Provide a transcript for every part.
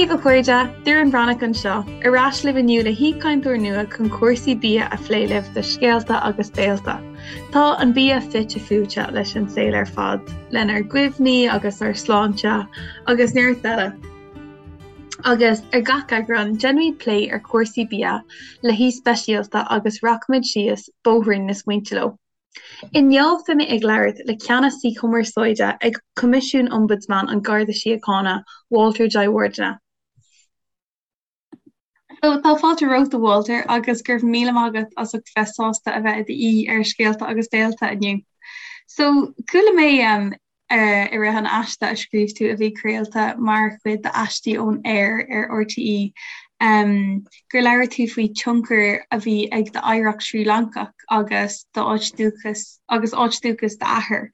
Dia daoibh a chairde, Doireann Bhreathnach anseo, ar ais libh inniu le haoichainteoir nua chun cúrsaí bia a phlé libh do Scéalta agus Béalta. Tá an bia fite fuaite leis an saol ar fad, lenár gcuimhní agus ár sláinte agus neart eile. Agus ar gach eagrán, déanfaimid plé ar chúrsaí bia le haoi speisialta agus rachaimid síos bóithrín na smaointe leo. Inniu beidh mé ag labhairt le Ceannasaí Cumarsáide ag Coimisiún Ombudsman an Gharda Síochána, Walter Jayawardene. So, tá fáilte romhat a Walter agus go raibh míle maith agat as ucht bheith sásta a bheith i d'aoi ar Scéalta agus Béalta inniu. So, chuala mé um, i rith an aiste a scríobh tú a bhí craolta mar chuid d'Aistí ón Aer ar RTÉ um, gur labhair tú faoi tionchar a bhí ag d'oidhreacht Srí Lancach agus d'áit dúchas agus áit dúchas d'athar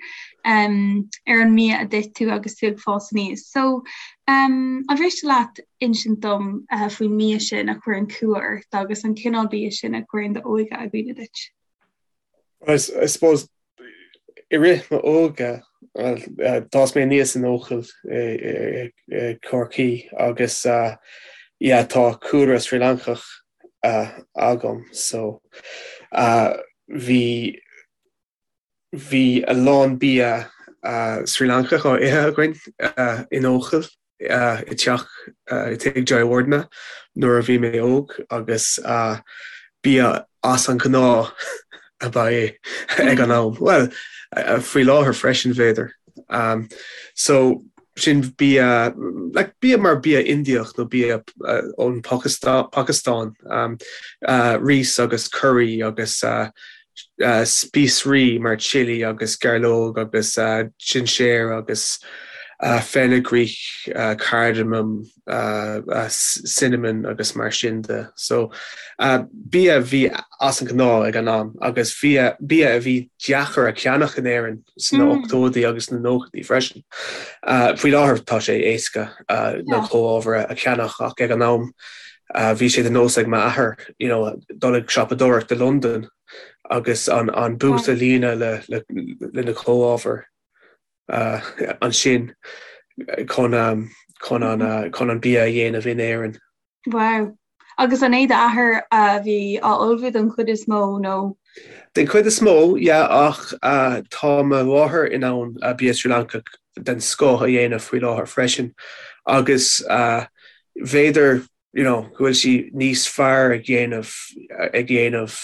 um, ar an mbia a d'ith tú agus tú ag fás aníos. So, um, an mhiste leat insint dom faoin mbia sin a chuireann cumha ort agus an cineál bia sin a chuireann d'óige i gcuimhne duit? I suppose i rith m'óige, bhuel, d'fhás mé aníos in Eochaill i gCorcaigh agus yeah, tá cúlra Srí Lancach agam so bhí Bhí a lán bia Srí Lancach á ithe againn in Eochaill i dteach i dtigh Jayawardene nuair a bhí mé óg agus bia as an ghnáth ab ea é ag an am. Bhuel, faoi láthair freisin b'fhéidir. So sin bia, like bia mar bia Indiach nó bia ón Phacastáin, rís agus curry agus spíosraí mar chilli agus gairleog agus sinséar agus fenugreek, cardamom, cinnamon agus mar sin de. So bia a bhí as an ghnáth ag an am agus bia a bhí deacair a cheannach in Éirinn sna ochtóidí agus sna nóchaidí freisin. Faoi láthair tá sé éasca na comhábhair a cheannach ach ag an am bhí sé de nós ag m'athair you know dul ag siopadóireacht i Londain agus an an boot a líonadh le le le na comhábhair ansin chun chun an chun an bia a dhéanamh in Éirinn. Wow. Agus an é d'athair a bhí á ullmhú den chuid is mó nó? Den chuid is mó, yeah, ach tá mo mháthair in ann bia Srí Lancach den scoth a dhéanamh faoi láthair freisin agus b'fhéidir you know go bhfuil sí níos fearr ag dhéanamh ag dhéanamh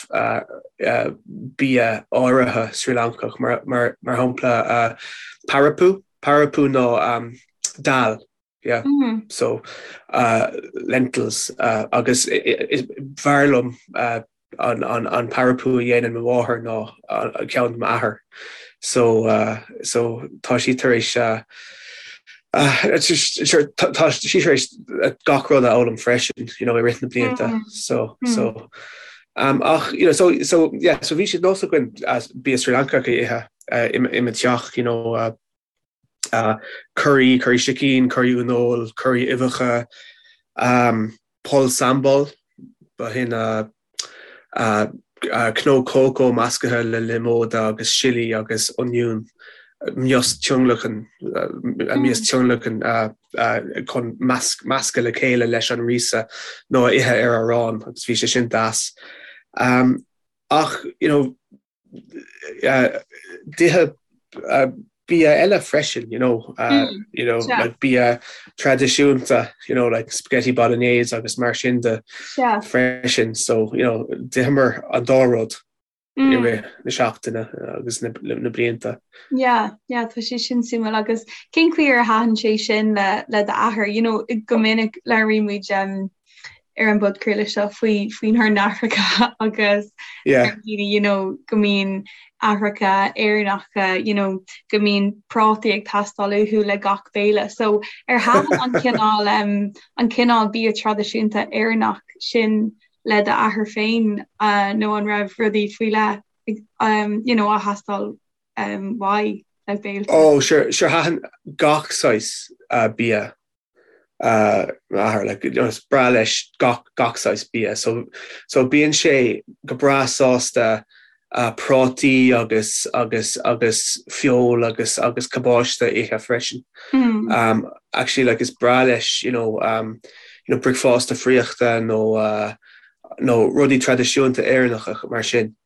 bia áirithe Srí Lancach mar mar mar shampla parappu, parappu ná dal yeah so lentils agus b'fhearr liom an parappu a dhéanann mo mháthair ná an ceann m'athair so so tá sí tar éis tá sí tar éis gach rud a fhoghlaim freisin you know i rith na blianta so so um, ach you know so so yeah so bhí sé de nós againn bia Sri Lancach a ithe i mo teach you know uh, uh, curry curry sicín curry uaineoil curry uibheacha um, pol sambal b'shin uh, uh, uh, cnó cócó measctha le liomóid agus sillí agus oinniún mias tionlacan uh, mias tionlacan uh, uh, chun meascadh le chéile leis an ríosa nó a ithe ar arán agus bhí sé sin deas. Um, ach you know, D'itheadh bia eile freisin, you know, you know, like bia traidisiúnta, you know, like spaghetti bolognese agus mar sin de freisin. So, you know, d'itheamar an dá rud i rith na seachtaine agus na blianta. Yeah, yeah, tá sé sin suimiúil agus cén chaoi ar thaitin sé sin le le d'athair, you know, go minic labhraímid um, ar an bpodchraoladh seo faoi faoinár n-aithreacha agus daoine you know go mbíonn aithreacha Éireannacha you know go mbíonn prátaí ag teastáil uathu le gach béile. So ar thaitin an cineál um, an cineál bia traidisiúnta Éireannach sin le d'athair féin uh, nó an raibh rudaí faoi leith um, you know, á theastáil um, uaidh le béilte? Oh, sure, sure thaitin gach saghas uh, bia m'athair like you know is breá leis gach gach saghas bia so so bíonn sé go breá sásta. prátaí agus agus agus feoil agus agus cabáiste a ithe freisin. Mm. Actually like is breá leis you know, um, you know, bricfeasta friochta nó uh, nó rudaí traidisiúnta Éireannacha mar sin.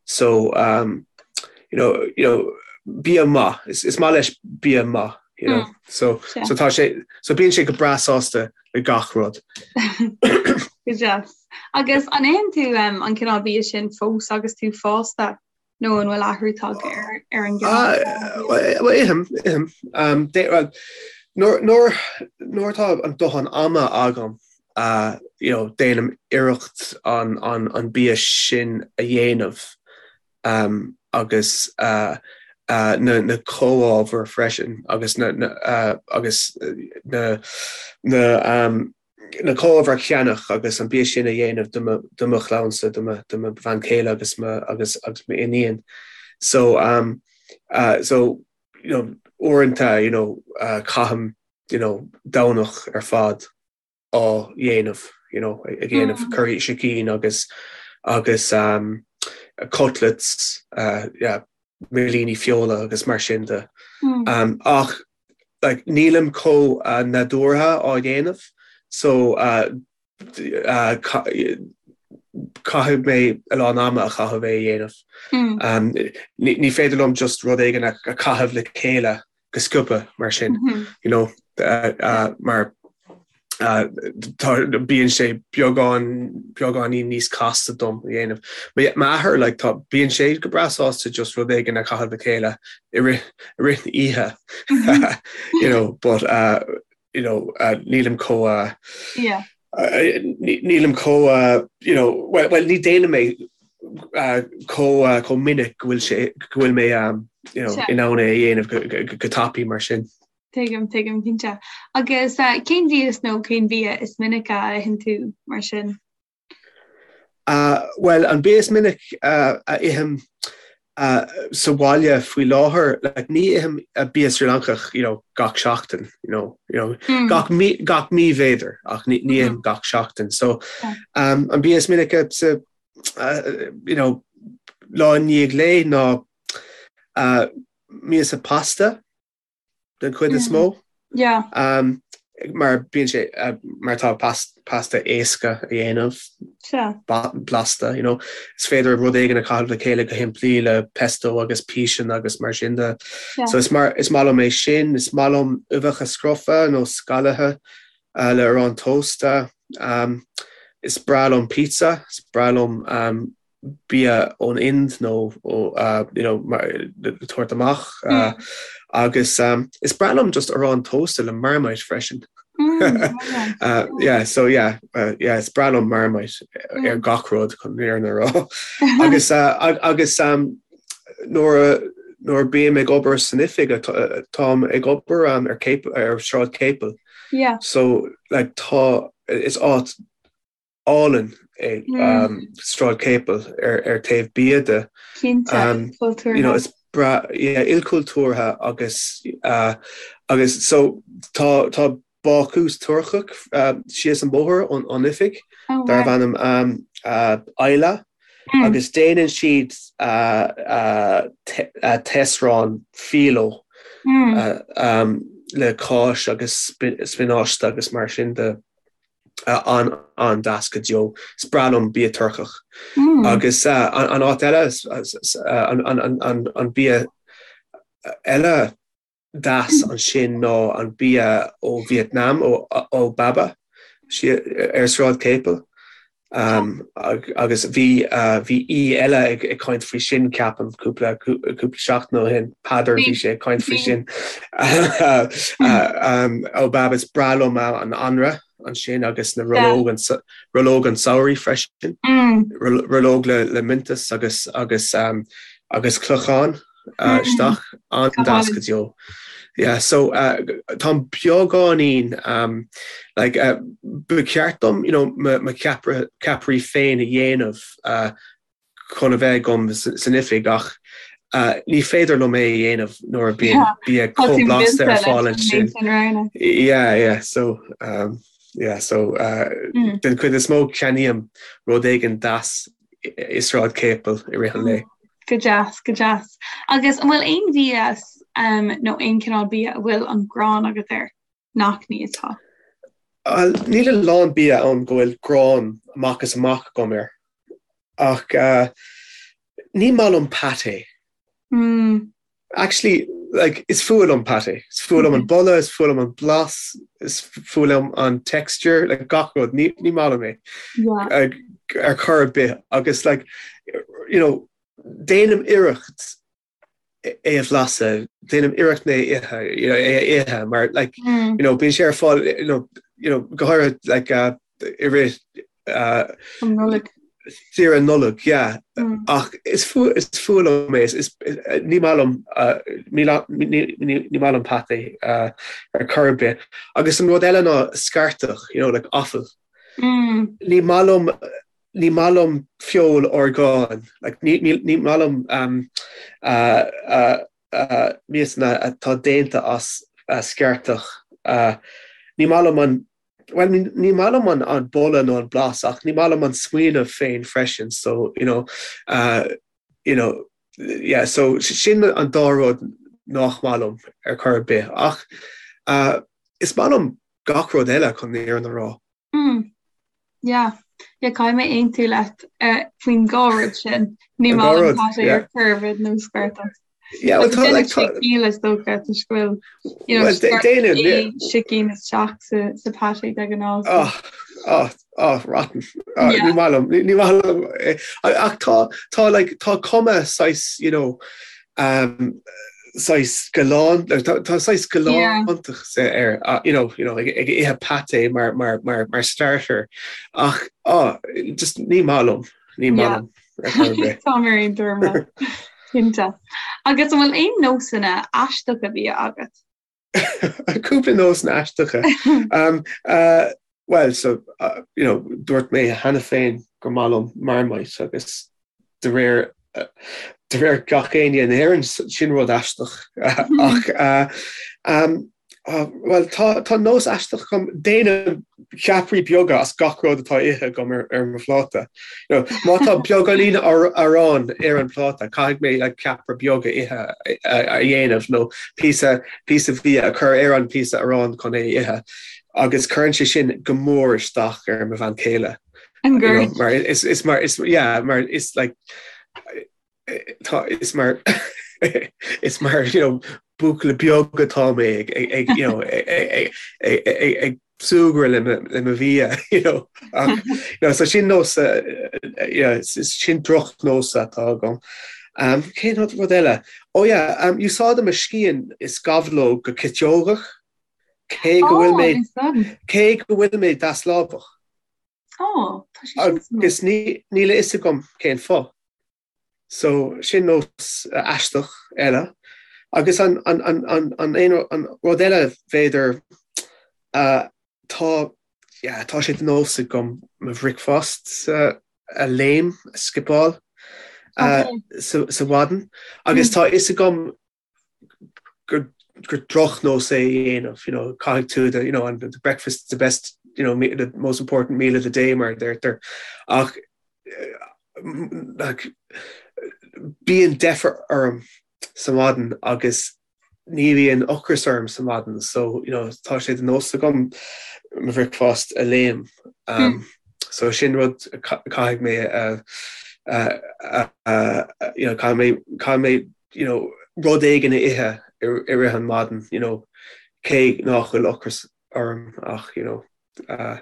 So um, you know, you know, bia maith, is, is maith leis bia maith, you know. Mm. So, yeah. so tá sé so bíonn sé go breá sásta le gach rud. Go deas. Agus an itheann tú um, an cineál bia sin fós agus tú fásta nó an bhfuil athrú tagtha ar, ar an gcineál? Uh, well, ithim, ithim. Um, de, well, nuair, nuair, nuair atá an dóthain ama agam, uh, you know, déanaim iarracht an, an, an bia sin a dhéanamh um, agus uh, uh, na, na comhábhair freisin agus na, na, uh, agus na, na, um, na comhábhair a cheannach agus an bia sin a dhéanamh do mo, do mo chlannsa, do mo, do mo bhean chéile agus mo, agus, agus m'iníon. So, um, uh, so, you know, uaireanta, you know, uh, caithim, you know, Domhnach ar fad á dhéanamh, you know, ag déanamh mm. curry sicín agus agus um, cutlets, uh, yeah, millíní feola agus mar sin de. Mm. Um, ach like, nílim chomh uh, nádúrtha á dhéanamh, so uh, uh, caithfidh mé a lán ama a chaitheamh é a dhéanamh. Mm. Um, ní, ní féidir liom just rud éigin a, a chaitheamh le chéile go sciobtha mar sin, mm -hmm. you know, uh, uh, mar uh, bíonn sé beagán beagáinín níos casta dom a dhéanamh. M'athair like, tá bíonn sé go breá sásta just rud éigin a chaitheamh le chéile i rith i rith na oíche mm-hmm. you know, but uh, you know, uh, nílim chomh uh, yeah. uh, nílim chomh uh, you know, well, well ní déanaim é uh, chomh uh, chomh minic go bhfuil sé go bhfuil mé um, you know, in ann é a dhéanamh go, go, go, go tapaidh mar sin. Tuigim, tuigim, cinnte. Agus uh, cén mhias nó cén bia is minice a itheann tú mar sin? Uh, well, an bia is minic uh, a ithim uh, sa bhaile faoi láthair, like, ní ithim uh, bia Sri Lankach you know, gach seachtain, you know, you know, mm. gach, mí, gach mí b'fhéidir, ach ní, ní ithim mm. gach seachtain. So, um, an bia is minice sa, uh, you know, lá i ndiaidh lae ná uh, miasa pasta, den chuid is mó. Yeah. Um, mar bíonn sé uh, mar tá pasta éasca a dhéanamh blasta, you know. Is féidir rud éigin a chaitheamh le chéile go shimplí le pesto agus píseanna agus mar sin de. Yeah. So is mar is maith liom é sin, is maith liom uibheacha scrofa nó scalaithe uh, le arán tósta. Um, is breá liom pizza, is breá liom um, bia ón Ind nó ó you know tabhairt amach agus is breá liom just arán tósta le Marmite freisin. Mm, yeah, so yeah, uh, yeah, is breá liom Marmite ar gach rud chun an fhírinne a rá. agus uh, agus um, nuair nuair bím ag obair san oifig táim ag obair um, ar ar Sráid Capel. Yeah. So like tá is áit álainn é Sráid Capel ar taobh bia de. Cinnte, ilchultúrtha. You know, is breá, yeah, ilchultúrtha agus agus so tá tá bácús Turcach síos an bóthar ón ón oifig oh, darb ainm um, uh, Ayla mm. agus déanann siad uh, uh, uh, taosrán filo mm. uh, um, le cáis agus spionáiste agus mar sin de. an-deas go deo. Is breá liom bia Turcach. Agus an áit eile, an bia eile deas ansin ná an bia ó Vietnam, ó Baba, ar Sráid Capel. Agus bhí bhí aoi eile ag caint faoi sin, ceapaim, cúpla cúpla seachtain ó shin, Peadar, bhí sé ag caint faoi sin. Ó Baba, is breá liom an anraith ansin agus na rollóg an rollóg an tsamhraidh freisin. Rollóg le le miontas agus agus agus clochán. isteach an-deas go deo. Yeah, so uh, táim beagáinín um, like, uh, ba cheart dom you know, mo, mo cheapra, ceapairí féin a dhéanamh uh, chun a bheith agam san oifig ach uh, ní féidir liom é a dhéanamh nuair a bíonn bia chomh blasta ar fáil ansin. Yeah, yeah, so um, yeah, so uh, mm. den chuid is mó ceannaím rud éigin deas i Sráid Capel i rith an lae. Go deas, go deas. Agus an bhfuil aon mhias nó aon cineál bia a bhfuil an ghráin agat air nach n-íosfá? Bhuel, níl a lán bia ann go bhfuil gráin amach is amach agam air. Ach ní maith liom pâté. Actually, like, is fuath liom pâté. Is fuath liom an boladh, is fuath liom an blas, is fuath liom an texture, like, gach rud. Ní, ní maith liom é. Yeah. Ar chor ar bith. Agus, like, you know, déanaim iarracht é a bhlaiseadh, déanaim iarracht é a ithe, you know, é a ithe, mar, like, mm. you know, bíonn sé ar fáil, you know, you know, go háirithe, like, uh, i rith uh, An Nollaig. Saoire Nollag, yeah. Mm. Ach is fuath is fuath liom é, is, ní maith liom uh, ní, ní, ní, ní maith liom pâté uh, ar chor ar bith. Agus an rud eile ná scairteach, you know, like offal. Mm. Ní maith liom ní maith liom feoil orgáin, like, ní, ní, ní maith liom um, uh, uh, uh, miasanna atá déanta as uh, scairteach. Uh, ní maith liom an Bhuel, ní maith liom an boladh nó an blas ach ní maith liom an smaoineamh féin freisin so, you know, uh, you know, yeah, so sin an dá rud nach maith liom ar chor ar bith ach uh, is maith liom gach rud eile chun an fhírinne a rá. Mm. Yeah. Yeah, caithfidh mé aontú leat uh, faoin dhá rud sin. Ní maith liom pâté ar chor ar bith nó scairteach. Yeah, well, tá, like, tá ciall is dócha toisc go bhfuil you know, déanann, yeah. sicín isteach sa, sa pâté de ghnáth. Oh, oh, oh, rotten. Oh, yeah. Ní maith liom, ní maith liom. Eh, ach tá, tá, like, tá cuma saghas, you know, um, saghas galán, tá, tá saghas galántach yeah. air, uh, you know, you know, ag, ag ithe pâté mar, mar, mar, mar starter. Ach, oh, just ní maith liom. Ní maith liom. Tá mé ar aon tuairim cinnte. Agus an bhfuil aon nósanna aisteacha bia agat? Cúpla nósanna aisteacha. um, uh, well, so, uh, you know, dúirt mé cheana féin gur maith liom Marmite agus de réir uh, de réir gach éinne in Éirinn sin rud aisteach ach uh, um, Bhuel, tá, tá nós aisteach agam, déanaim ceapairí beaga as gach rud atá ithe agam ar, ar mo phláta. You know, má tá beagáinín aráin ar an pláta, caithfidh mé like, ceapaire beag a ithe a, a dhéanamh nó píosa, píosa bia a chur ar an píosa aráin chun é a ithe. Agus cuireann sé sin go mór isteach ar mo bhean chéile. An You know, mar is, is mar, is, yeah, mar is like, tá is mar is mar you know buachaill beag atá mé ag ag you know ag ag ag súgradh le le mo bhia you know ach you know so sin nós yeah sin drochnós atá agam. Um, cén rud eile? Oh yeah, um, úsáidim mo scian is gabhlóg go citeogach cé go bhfuil mé cé go bhfuil mé deaslámhach. Oh, tá sé sin suimiúil. Agus níl a fhios agam cén fáth. So, sin nós aisteach eile. Agus an, an, an, an, an, aon, an rud eile b'fhéidir, uh, tá, yeah, tá sé de nós agam mo bhricfeasta a léim, a skipeáil, uh, sa, sa mhaidin. Agus tá a fhios agam gur gur drochnós é a dhéanamh, you know, caithfidh tú the, you know, and the breakfast is the best, you know, the most important meal of the day mar a deirtear. Ach like, bíonn deifir orm sa mhaidin agus ní bhíonn ocras orm sa mhaidin, so, you know, tá sé de nós agam mo bhricfeasta a léim. Um, so sin rud caithfidh mé a, a, a, you know, caithfidh mé, caithfidh mé you know, rud éigin a ithe i rith an maidin, you know, cé nach bhfuil ocras orm ach, you know, uh,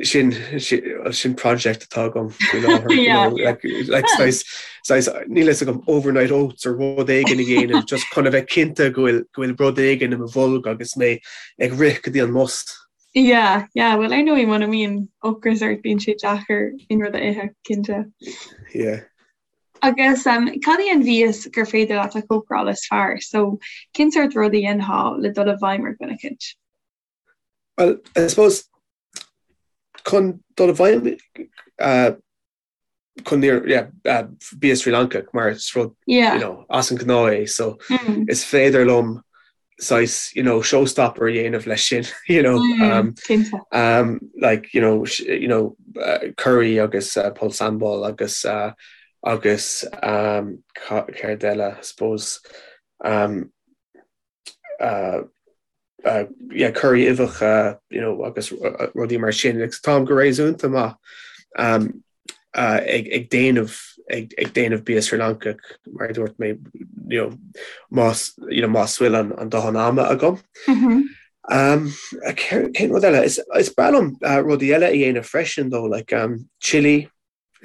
sin, sin, sin project atá agam faoi láthair, you know, like, like saghas, saghas, níl fhios agam overnight oats or rud éigin a dhéanamh, just chun a bheith cinnte go bhfuil, go bhfuil rud éigin i mo bholg agus mé ag rith go dtí an mbus. Yeah, yeah, well ar ndóigh muna mbíonn ocras ort bíonn sé deacair aon rud a ithe, cinnte. Yeah. Agus cad í an mhias gur féidir leat a chócaráil is fearr? So, cén sórt rud a dhéanfá le dul i bhfeidhm ar dhuine eicínt? Well, I suppose, chun dul i bhfeidhm uh, chun yeah, uh, bia Sri Lanka mar is rud yeah. you know, as an ngnáth é, so mm. is féidir liom saghas you know showstopper a dhéanamh leis sin you know mm, um, um, like you know you know uh, curry agus uh, pol sambal agus uh, Agus céard eile, I suppose, yeah, curry uibheacha, you know, agus rudaí mar sin. Like, táim go réasúnta maith ag déanamh ag déanamh bia Srí Lancach, mar a dúirt mé, you know, más, you know, más bhfuil an dóthain ama agam. Cén rud eile? Is breá liom rudaí eile a dhéanamh freisin, though, like chili,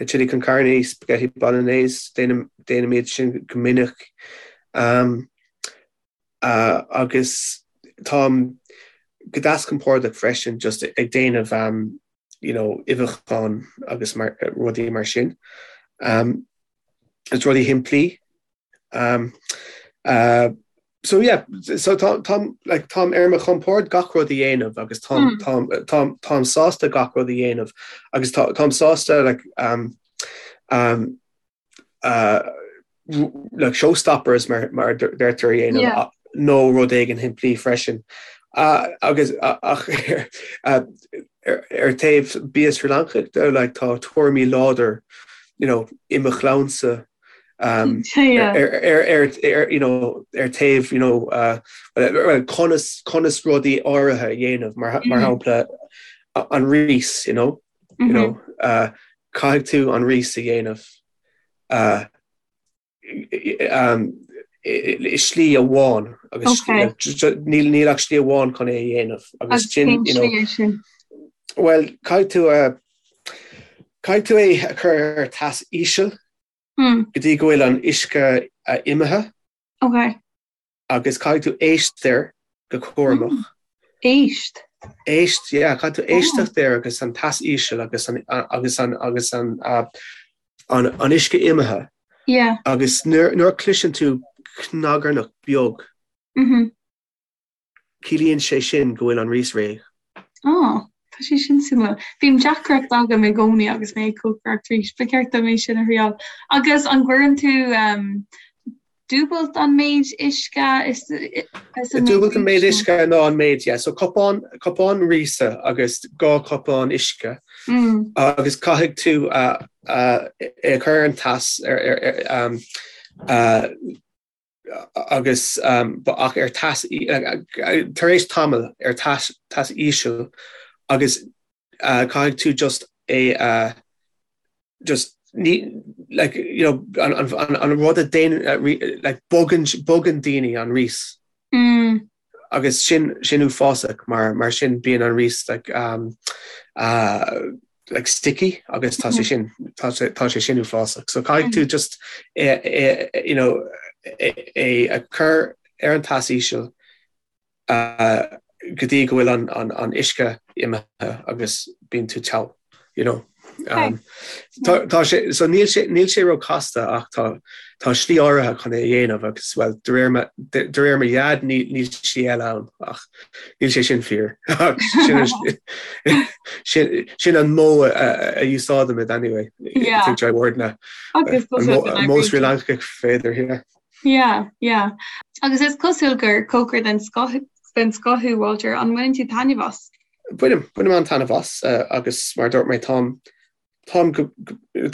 Chili con carne, spaghetti bolognese, déanaim iad sin go minic. Agus táim go deas compordach freisin just ag déanamh you know uibheacháin agus rudaí mar sin. Is rudaí shimplí. So yeah, so tá táim like táim ar mo chompord gach rud a dhéanamh agus táim táim táim táim sásta gach rud a dhéanamh agus tá táim sásta like um um uh like showstoppers mar mar deirtear a dhéanamh yeah. nó rud éigin shimplí freisin. Uh, agus uh, ach uh, ar, ar taobh bia Sri Lancach de like tá tuairimí láidir you know, i mo chlannsa Um, ar, ar, ar, ar, you know, ar taobh you know, uh, well, conas, conas rudaí áirithe a dhéanamh mar, mar mm. shampla an rís you know, mm -hmm. you know, uh, caithfidh tú an rís a dhéanamh uh, um, i slí amháin agus okay. níl níl ach slí amháin chun é a dhéanamh agus sin you know, well caithfidh tú uh, caithfidh tú é a chur ar teas íseal go dtí go bhfuil an uisce imithe. Ok. Agus caithfidh tú éist air go cúramach. Éist? Éist, yeah, caithfidh tú éisteacht air agus an teas íseal agus an agus an agus an an an uisce imithe. Yeah. Agus nuair nuair a chloiseann tú cnagarnach beag. Mhm. Ciallaíonn sé sin go bhfuil an rís réidh. Á, tá sé sin suimiúil. Bíonn deacracht agam i gcónaí agus mé ag cócaireacht rís. Ba cheart dom é sin a thriáil. Agus an gcuireann tú dúbailt an méid uisce is an méid Dúbailt an méid uisce ná an méid, yeah. So cupán, cupán ríse agus 2 cupán uisce. Agus caithfidh tú é a chur ar an teas ar, ar, ar, agus ach ar teas tar éis tamaill ar teas teas íseal agus caithfidh tú just é a just ní like you know an an an rud a déanann like bogann bogann daoine an rís. Mm. Agus sin sin uafásach mar mar sin bíonn an rís like um uh like sticky agus tá sé sin tá sé tá sé sin uafásach. So caithfidh tú just é é you know é é a chur ar an teas íseal uh go dtí go bhfuil an an an uisce imithe agus bíonn tú togha you know. Um, tá tá sé so níl sé níl sé ró casta ach tá tá slí áirithe chun é a dhéanamh agus well de réir mo de de réir mo dhaid ní níl slí eile ann ach níl sé sin fíor sin sin sin an modh a a úsáidimid anyway Yeah. I think Jayawardene Agus an modh an modh Sri Lancach féidir yeah. Yeah, yeah. Agus is cosúil gur cócaire den scoth den scoth thú Walter, an mbaineann tú taitneamh as? Bainim, bainim an-taitneamh as agus mar a dúirt mé táim, táim go,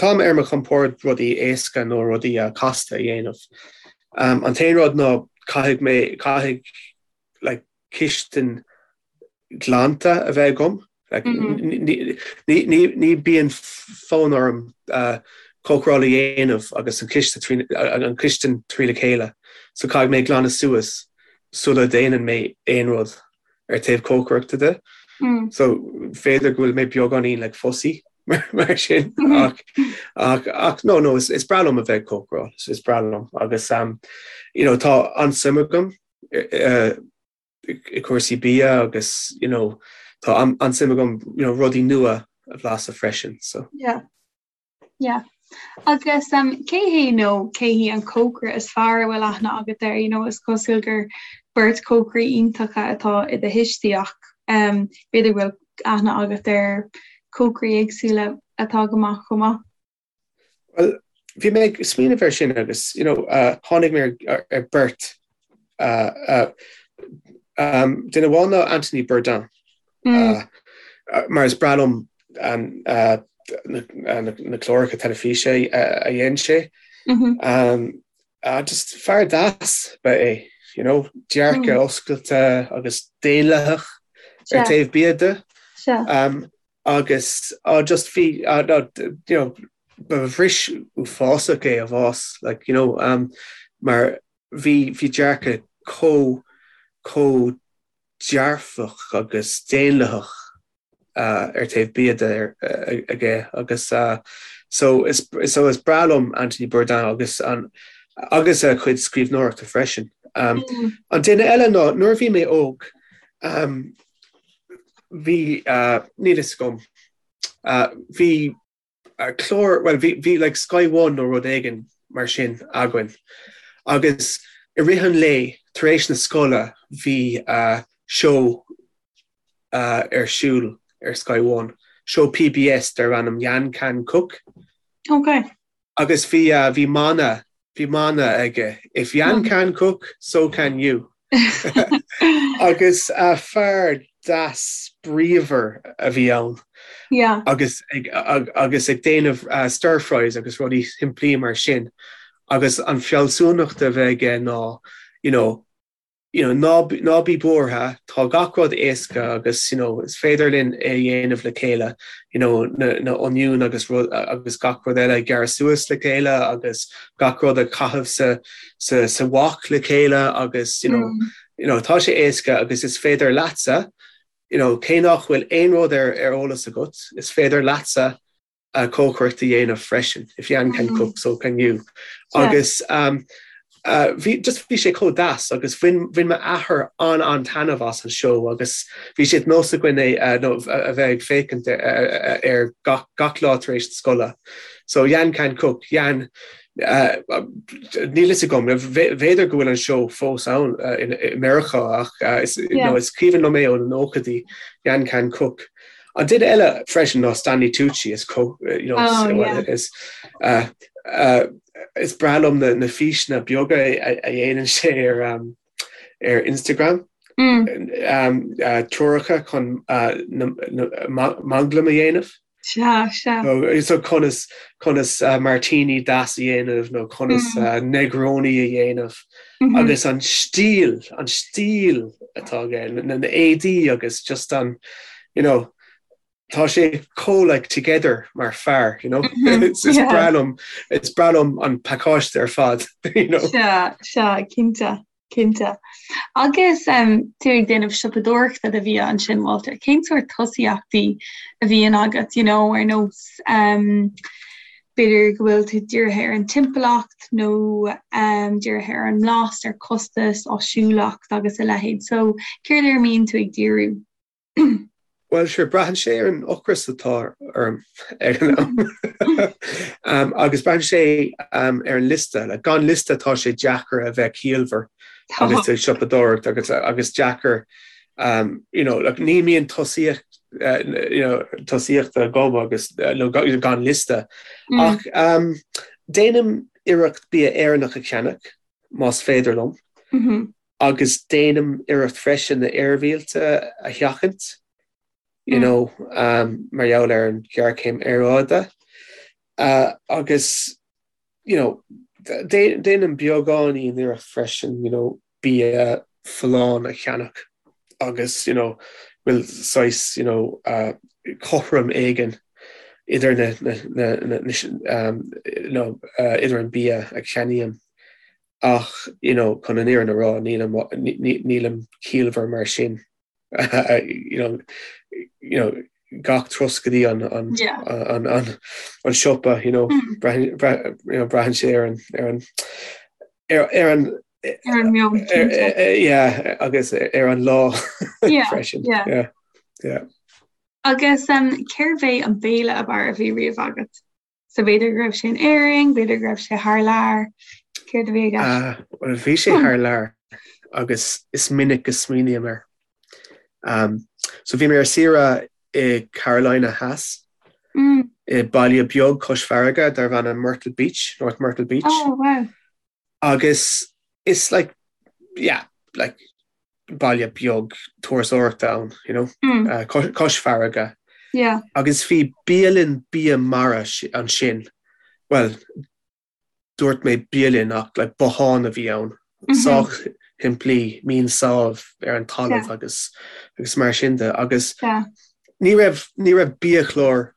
táim ar mo chompord rudaí éasca nó rudaí casta a dhéanamh. An t-aon rud ná caithfidh mé, caithfidh like cistin glanta a bheith agam. Like ní, ní, ní, ní bíonn fonn orm cócaráil a dhéanamh agus an ciste trí, an chistin trí le chéile. So caithfidh mé glanadh suas sula déanann mé aon rud. ar taobh cócaireachta de. So b'fhéidir go bhfuil mé beagáinín like fussy mar sin ach ach ach no no is is breá liom a bheith ag cócaráil is breá liom agus um, you know tá an-suim agam uh, i cúrsaí bia agus you know tá an-suim agam you know rudaí nua a bhlaiseadh freisin so. Yeah. Yeah. Agus um, cé hé nó cé hí an cócaire is fearr a bhfuil aithne agat air? You know, is cosúil gur beirt cócairí iontacha atá i do thuistí ach um, b'fhéidir go bhfuil aithne agat ar cócairí éagsúla atá go maith chomh maith. Well, bhí mé ag smaoineamh air sin agus you know, uh, tháinig mé ar, ar beirt uh, uh, um, duine amháin ná Anthony Bourdain. Mm. Uh, mar is breá liom um, uh, na cláracha teilifíse a dhein sé. Just fear deas ba ea é, you know, dearcadh oscailte agus daonlathach ar taobh bia de. Agus just bhí, you know, ba bhris uafásach é a bhás, like, you know, mar bhí, bhí dearcadh chomh, chomh dearfach agus daonlathach ar taobh bia de aige agus so is so is breá liom Anthony Bourdain agus an agus a chuid scríbhneoireachta freisin. An duine eile ná nuair a bhí mé óg bhí níl fhios agam bhí clár, bhuel bhí, bhí like Sky One nó rud éigin mar sin againn agus i rith an lae tar éis na scoile bhí seó ar siúl ar Sky One, seó PBS darb ainm Yan Can Cook. Ok. Agus bhí, bhí mana, bhí mana aige, If Yan can cook, so can you. Agus fear deas bríomhar a bhí ann. Yeah. Agus ag, agus ag déanamh stir fries agus rudaí simplí mar sin. Agus an fealsúnacht a bheith aige ná, you know, you know, ná, ná bí buartha, tá gach rud éasca agus, you know, is féidir linn é a dhéanamh le chéile, you know, na, na oinniúin agus rud, agus gach rud eile a ghearradh suas le chéile agus gach rud a chaitheamh sa, sa, sa wok le chéile agus, you know, mm. you know, tá sé éasca agus is féidir leatsa, you know, cé nach bhfuil aon rud ar, ar eolas agat, is féidir leatsa cócaireacht a dhéanamh freisin, if Yan can cook, so can you. Agus bhí, just bhí sé chomh deas agus bhain, bhain m'athair an-an-taitneamh as an seó agus bhí sé de nós againn é nó a bheith ag féachaint air gach, gach lá tar éis na scoile. So Yan can cook, Yan, níl fhios agam, b'fhéidir go bhfuil an seó fós ann i Meiriceá ach is, nó is cuimhin liom é ó na nóchaidí, Yan can cook. An duine eile freisin ná Stanley Tucci, is you know, oh, yeah. is, uh, uh, is breá liom na, na físeanna beaga a dhéanann sé ar, um, ar Instagram. Mm. Um, uh, treoracha chun uh, manglam a dhéanamh. Sea, sea. So, so conas, conas uh, martini deas a dhéanamh nó conas mm. uh, Negroni a dhéanamh. Mm -hmm. Agus an stíl, an stíl atá aige, na, na éadaí agus just an, you know, tá sé chomh like together mar fear, you know? Mm -hmm. Is, is yeah. breá liom, is breá liom an pacáiste ar fad, you know? Sea, sea, cinnte. Cinnte. Agus tú ag déanamh siopadóireachta do bhia ansin, Walter, cén sórt tosaíochtaí a bhíonn agat, you know, ar nós b'fhéidir go bhfuil tú dírithe ar an timpeallacht nó dírithe ar an mblas, ar costas, áisiúlacht agus a leithéid. So, céard ar a mbíonn tú ag díriú? Bhuel, sure, braitheann sé ar an ocras atá orm ag an am. Agus braitheann sé ar an liosta. Like, gan liosta tá sé deacair a bheith ciallmhar agus ag siopadóireacht agus agus deacair um, you know, like, ní mbíonn tosaíocht uh, you know, tosaíochta agam agus uh, nó gan liosta. Mm. Ach um, déanaim iarracht bia Éireannach a cheannach más féidir liom. Mm -hmm. agus déanaim iarracht freisin na dramhbhiaillte a sheachaint, you know, mar gheall ar an ghéarchéim aeráide. Agus, you know, déanaim beagáinín iarracht freisin, you know, bia folláin a cheannach agus, you know, bhfuil saghas, you know, cothrom éigin idir na, na, na, na, you know, idir an bia a cheannaím. Ach, you know, chun an fhírinne a rá, nílim, nílim ciallmhar mar sin. You know, you know, gach turas go dtí an, an, yeah. an, an, an siopa, you know, mm. braitheann, you know, braitheann sé ar an, ar an, ar, ar an, ar an meon yeah, agus ar an lá yeah, freisin. Yeah. Yeah. Yeah. Agus um, cérbh é an béile ab fhearr a bhí riamh agat? So b'fhéidir go raibh sé in Éirinn, b'fhéidir go raibh sé thar lear, céard a bhí i gceist? Bhuel, bhí sé thar lear agus is minic go smaoiním air. Um, so bhí mé ar saoire i Carolina Theas, mm. i baile beag cois farraige darbh ainm Myrtle Beach, North Myrtle Beach. Oh, wow. Agus is like, yeah, like baile beag turasóireachta ann, you know, mm. uh, cois farraige. Yeah. Agus bhí bialann bia mara ansin, bhuel, dúirt mé bialann ach like bothán a bhí ann, sách shimplí, mín sáibh ar an talamh agus agus mar sin de. Agus ní raibh ní raibh biachlár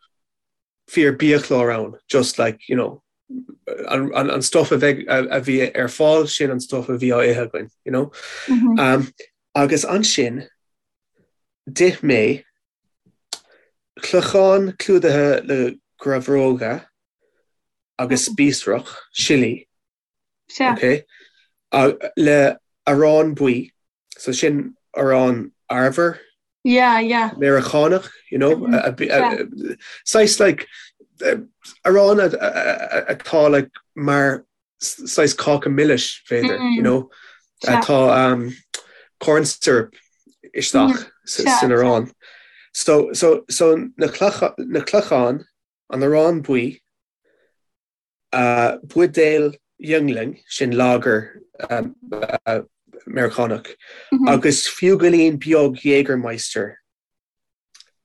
fíor biachlár ann, just like, you know, an, an, an stuff a bheidh a, a bhí ar fáil sin an stuff a bhí á ithe againn, you know. Mm -hmm. um, agus ansin d'ith mé clochán clúdaithe le grabhróga agus spíosrach, sillí, okay, le arán buí, so sin arán arbhair Yeah, yeah. Meiriceánach, you know, saghas like arán atá like mar saghas cáca milis b'fhéidir, you know, tá um, corn syrup isteach san arán. So, so, so na na clochán an arán buí, buidéal Yuengling, sin lager Meiriceánach, agus fiú goilín beag Jägermeister.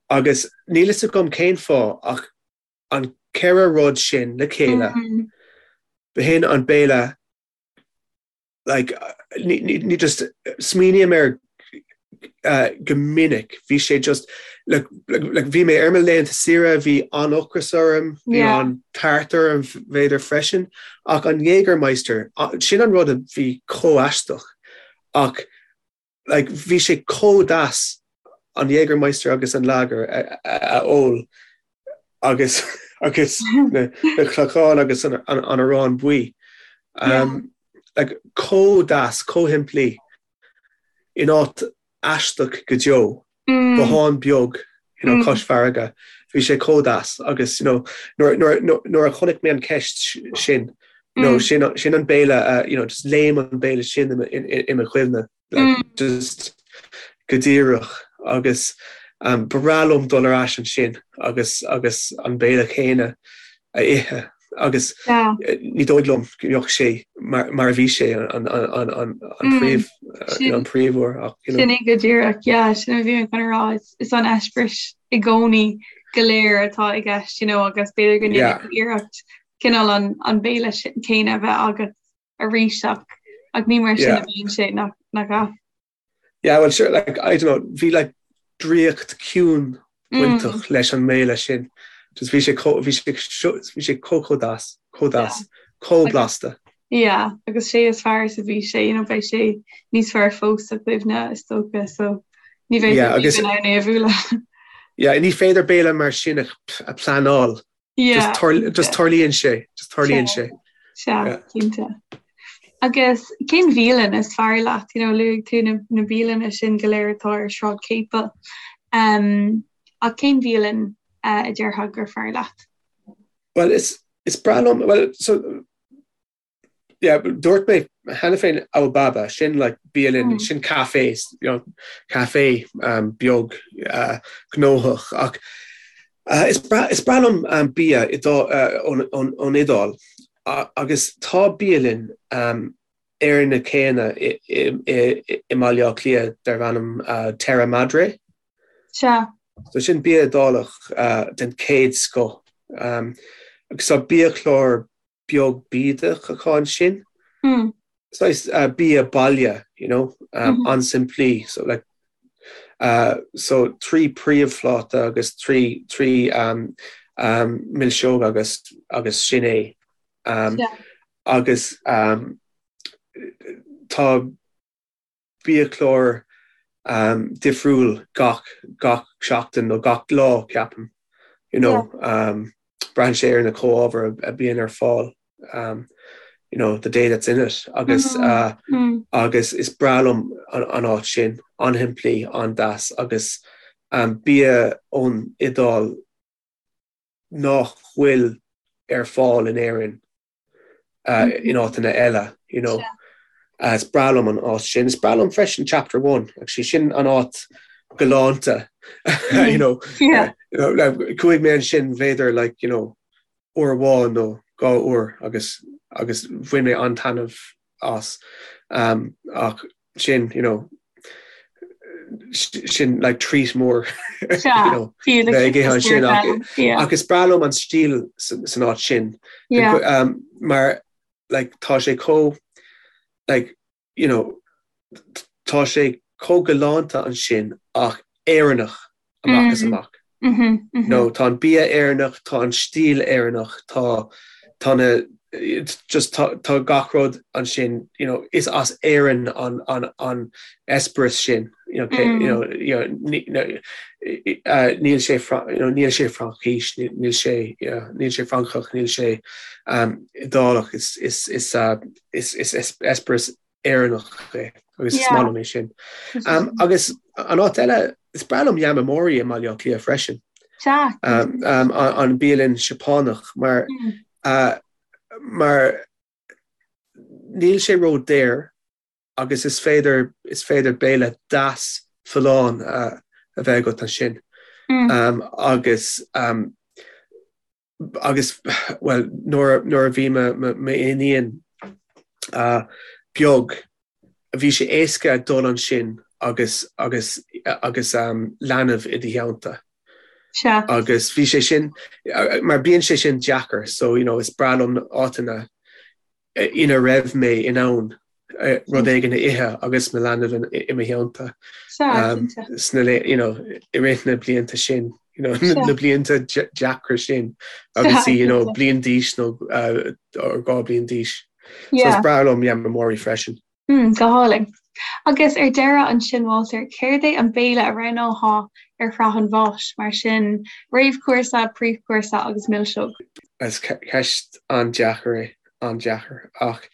Agus níl fhios agam cén fáth ach an ceithre rud sin le chéile, b'shin an béile like ní just smaoiním air go minic bhí sé just like like bhí mé ar mo laethanta saoire bhí an-ocras orm bhí an-tart orm b'fhéidir freisin ach an Jägermeister sin an rud a bhí chomh aisteach ach like bhí sé chomh deas an Jägermeister agus an lager a, a, a ól agus agus na, na clochán agus an, an, an arán buí. Um, yeah. like, chomh deas, chomh shimplí in áit aisteach go deo. Mm. Bothán beag you know, mm. cois farraige. Bhí sé chomh deas agus you know, nuair, nuair, nuair, nuair a chonaic mé an ceist sin, you know, mm. sin, sin an béile, uh, you know, just léim an béile sin i mo chuimhne. Like, mm. just go díreach agus um, ba bhreá liom dul ar ais ansin agus agus an béile céanna a ithe agus yeah. Eh, ní dóigh liom go mbeadh sé mar, mar a bhí sé an, an, an, an, an mm. príomh eh, an príomhuair ach you know. Sin go díreach yeah, sin a bhí mé chun a rá is an eispéireas i gcónaí go léir atá i gceist you know, agus b'fhéidir go ndéanfaidh iarracht cineál an, an béile céanna a bheith agat arís ach ach ní mar sin a bhíonn sé nach nach ea? Yeah, well sure, like, I don't know, bhí like draíocht ciúin bainteach mm. leis an mbéile sin. Just bhí sé bhí sé bhí sé chomh chomh deas, chomh deas, chomh blasta. Yeah, agus sé is fearr is a bhí sé, you know, beidh sé níos fearr fós sa chuimhne is dócha, so ní bheidh yeah, agus, in ann é a bhualadh. Yeah, ní féidir béile mar sin a, a pleanáil. Yeah. Just tarlaíonn sé, just tarlaíonn sé. Sea, cinnte. Agus cén bhialann is fearr leat? You know, luaigh tú na, na bialanna sin go léir atá ar Sráid Capel. Um, ach cén bhialann uh, a déarfá gur fearr leat? Well, is, is breá liom, well, so, yeah, dúirt mé cheana féin Al Baba, sin like bialann, mm. sin café, you know, café um, beag uh, gnóthach ach uh, is breá, is breá liom um, bia uh, ón, ón, ón Iodáil uh, agus tá bialann um, ar na céanna i, i, i, i mBaile Átha Cliath darb ainm uh, Terra Madre. Sea. So sin bia Iodálach uh, den chéad scoth. Um, agus tá biachlár beag bídeach acu ansin. Saghas bia baile, you know, an-simplí. So like, so 3 príomhphláta agus 3 3 milseog agus agus sin é. Agus tá biachlár difriúil gach gach seachtain nó gach lá ceapaim you know braitheann sé ar na comhábhair a bíonn ar fáil you know the day that's in it agus agus is breá liom an áit sin an-shimplí an-deas agus bia ón Iodáil nach bhfuil ar fáil in Éirinn in áiteanna eile, you know. Is breá liom an áit sin. Is breá liom freisin Chapter One, actually sin an áit galánta, you know. Chuaigh mé ansin b'fhéidir like, you know, uair amháin nó dhá uair agus agus bhain mé an-taitneamh as. Ach sin, you know, Sin like treat mór you know, bheith ag ithe ansin ach is breá liom an stíl san áit sin um, mar like tá sé chomh like you know tá sé chomh galánta ansin ach Éireannach amach is amach. Nó tá an bia Éireannach, tá an stíl Éireannach, tá tá na just tá tá gach rud ansin, you know, is as Éirinn an an an eispéireas sin, you know, you know, you know, níl sé you know, níl sé Fraincis, níl sé níl sé Francach, níl sé um, Iodálach, is is is uh, is is eispéireas Éireannach é agus is maith liom é sin. Agus an áit eile, is breá liom Yamamori i mBaile Átha Cliath freisin. An bialann Seapánach mar mar níl sé ró-daor agus is féidir is féidir béile deas folláin a bheith agat ansin. Agus agus, bhuel, nuair a bhí m'iníon beag, bhí sé éasca dul ansin agus, agus, agus leanbh i do theannta. Sea. Agus bhí sé sin, mar bíonn sé sin deacair, so, you know, is breá liom áiteanna ina raibh mé in ann rud éigin a ithe agus mo leanbh i mo theannta sna you know, i rith na blianta sin, you know, na blianta deacra sin agus í you know, bliain d'aois nó 2 bliain d'aois. So is breá liom Yamamori freisin. Mm, go hálainn. Agus ar deireadh ansin, Walter, céard é an béile a roghnófá ar shraith an bháis, mar sin, réamhchúrsa, príomhchúrsa agus milseog? Is ceist an-deacair é, an-deacair. Ach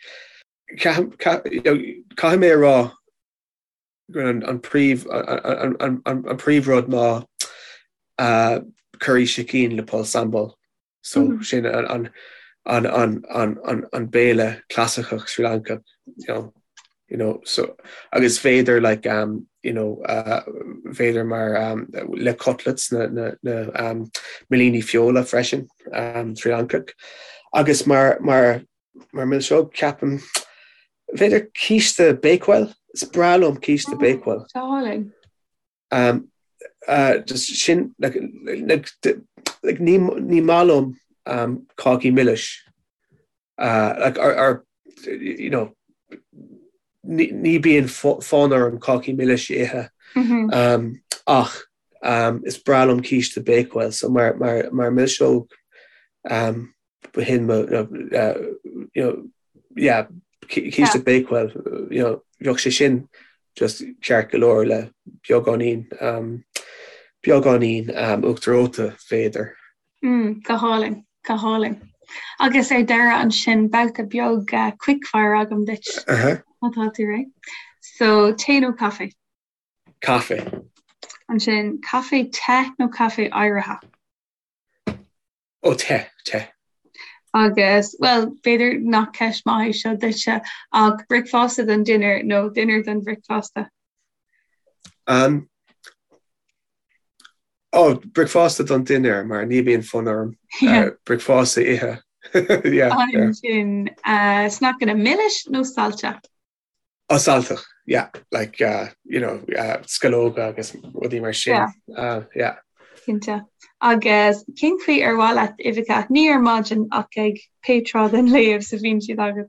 caithfidh mé a rá go an príomh, an príomhrud ná curry sicín le pol sambal. So sin an an an an an an béile clasaiceach Sri Lankach, you know, you know, so agus b'fhéidir like um, you know, uh, b'fhéidir mar um, le cutlets na, na, na um, millíní feola freisin um, Sri Lankach. Agus mar, mar, mar milseog ceapaim b'fhéidir císte Bakewell, is breá liom císte oh, Bakewell. Darling. Um, uh, just sin, like, like, like, ní, ní maith liom um, cácaí milis. Uh, like, or, or, you know, ní, ní bíonn fonn orm cácaí milis a ithe. Mm -hmm. um, ach um, is breá liom císte Bakewell, so mar, mar, mar milseog um, b'shin mo, you know, yeah, císte Bakewell, you know, bheadh sé sin just ceart go leor le beagáinín, um, beagáinín um, uachtar reoite b'fhéidir. Mm, go hálainn, go hálainn. Agus ar deireadh ansin babhta beag uh, quickfire agam duit. Uh -huh. Má tá tú réidh. So, tae nó caife? Caife. Ansin, caife te nó caife oighrithe? Ó, te, te. Agus, bhuel, b'fhéidir nach ceist maith é seo duitse, ach bricfeasta don dinnéar nó dinnéar don bhricfeasta? Um, ó, bricfeasta don dinnéar, mar ní bhíonn fonn orm uh, bricfeasta a ithe. yeah, Ansin, uh, sneaiceanna milis nó saillte? Ó, sailteach, yeah, like, uh, you know, uh, sceallóga agus rudaí mar sin. Yeah. Uh, yeah. Cinnte. Agus cén chaoi ar mhaith leat uibheacha? Ní ar maidin ach ag pé tráth den lá is a bhíonn siad agat.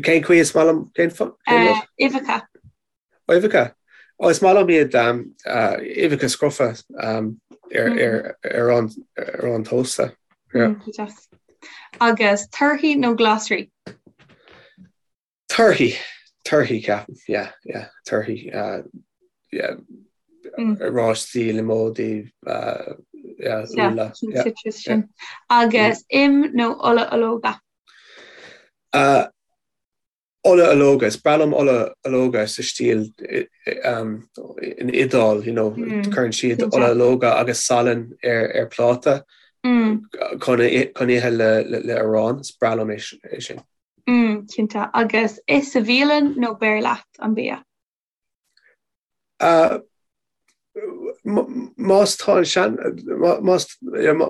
Cén chaoi is maith liom cén rud? Uh, uibheacha. Uibheacha. Ó, is maith liom iad um, uh, uibheacha scrofa um, ar, mm. ar, ar, ar, ar an tósta. Yeah. Mm, Agus torthaí nó glasraí? Torthaí, torthaí ceapaim, yeah, yeah, torthaí, uh, yeah, mm. oráistí, liomóidí, uh, yeah, úlla. Yeah, citrus sin. Agus im nó ola ológa? Uh, Ola ológa, is breá liom ola ológa sa stíl in Iodáil, you know, cuireann siad ola ológa agus salann ar ar pláta chun chun ithe le le arán, is breá liom é sin. Cinnte. Agus ith sa bhialann nó beir leat an bia? Más tá an sean más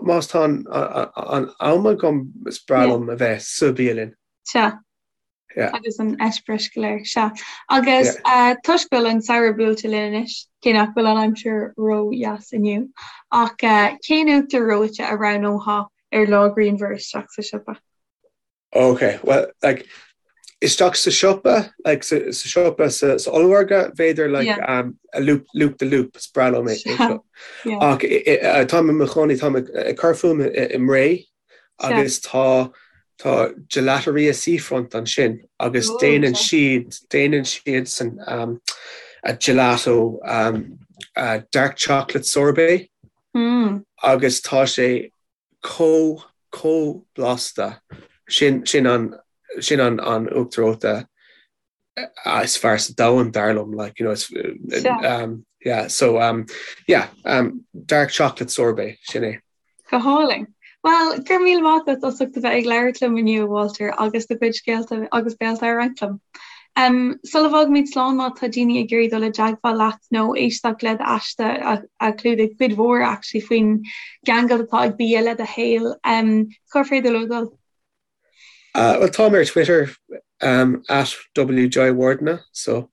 más tá an an am agam is breá liom a bheith sa bhialann. Sea. Yeah. Agus an eispéireas go léir, sea. Agus yeah. uh, toisc go bhfuil an samhradh buailte linn anois, cé nach bhfuil an aimsir ró-dheas inniu, ach uh, cén uachtar reoite a roghnófá ar lá grianmhar isteach sa siopa? Ok, well, like, isteach sa siopa, like, sa, sa siopa sa, sa ollmhargadh, b'fhéidir, like, yeah. um, a loop, loop the loop, is breá liom é. Yeah. Ach táim i mo chónaí, táim ag cur fúm i mBré, agus tá tá Gelateria Seafront ansin agus oh, déanann siad déanann siad san um, a gelato um, a dark chocolate sorbet mm. agus tá sé chomh chomh blasta sin sin an sin an an uachtar reoite is fearr sa domhan dar liom like you know it's um, yeah so um, yeah um, dark chocolate sorbet sin é. Go hálainn. Well, go raibh míle maith agat as ucht a bheith ag labhairt liom inniu, Walter, agus do chuid scéalta agus béalta a roinnt liom. Um, sula bhfágaimid slán má tá daoine ag iarraidh dul i dteagmháil leat nó éisteacht le d'aiste a, a chlúdaigh cuid mhór actually faoin gceangal atá ag bia le do shaol, um, cár féidir leo dul? Uh, well, táim ar Twitter um, at WJayawardena, so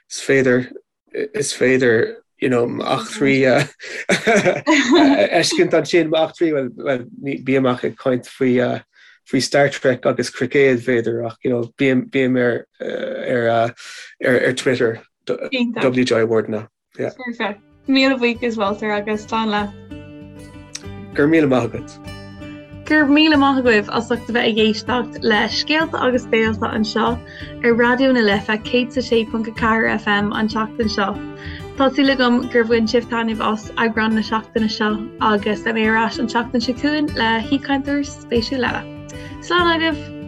is féidir is féidir you know, m'eachtraí a fheiscint ansin m'eachtraí well, well, bím ach ag caint faoi uh, faoi Star Trek agus cruicéad b'fhéidir ach you know, bím, bím ar, ar, uh, ar, ar Twitter WJayawardena. Yeah. Perfect. Míle buíochas Walter agus slán leat. Go raibh míle maith agat. Go raibh míle maith agaibh as ucht a bheith ag éisteacht le Scéalta agus Béalta anseo ar Raidió na Life 106.4 FM an tseachtain seo. Tá súil agam gur bhain sibh taitneamh as eagrán na seachtaine seo agus beidh mé ar ais an tseachtain seo chugainn le haoichainteoir spéisiúil eile. Slán agaibh!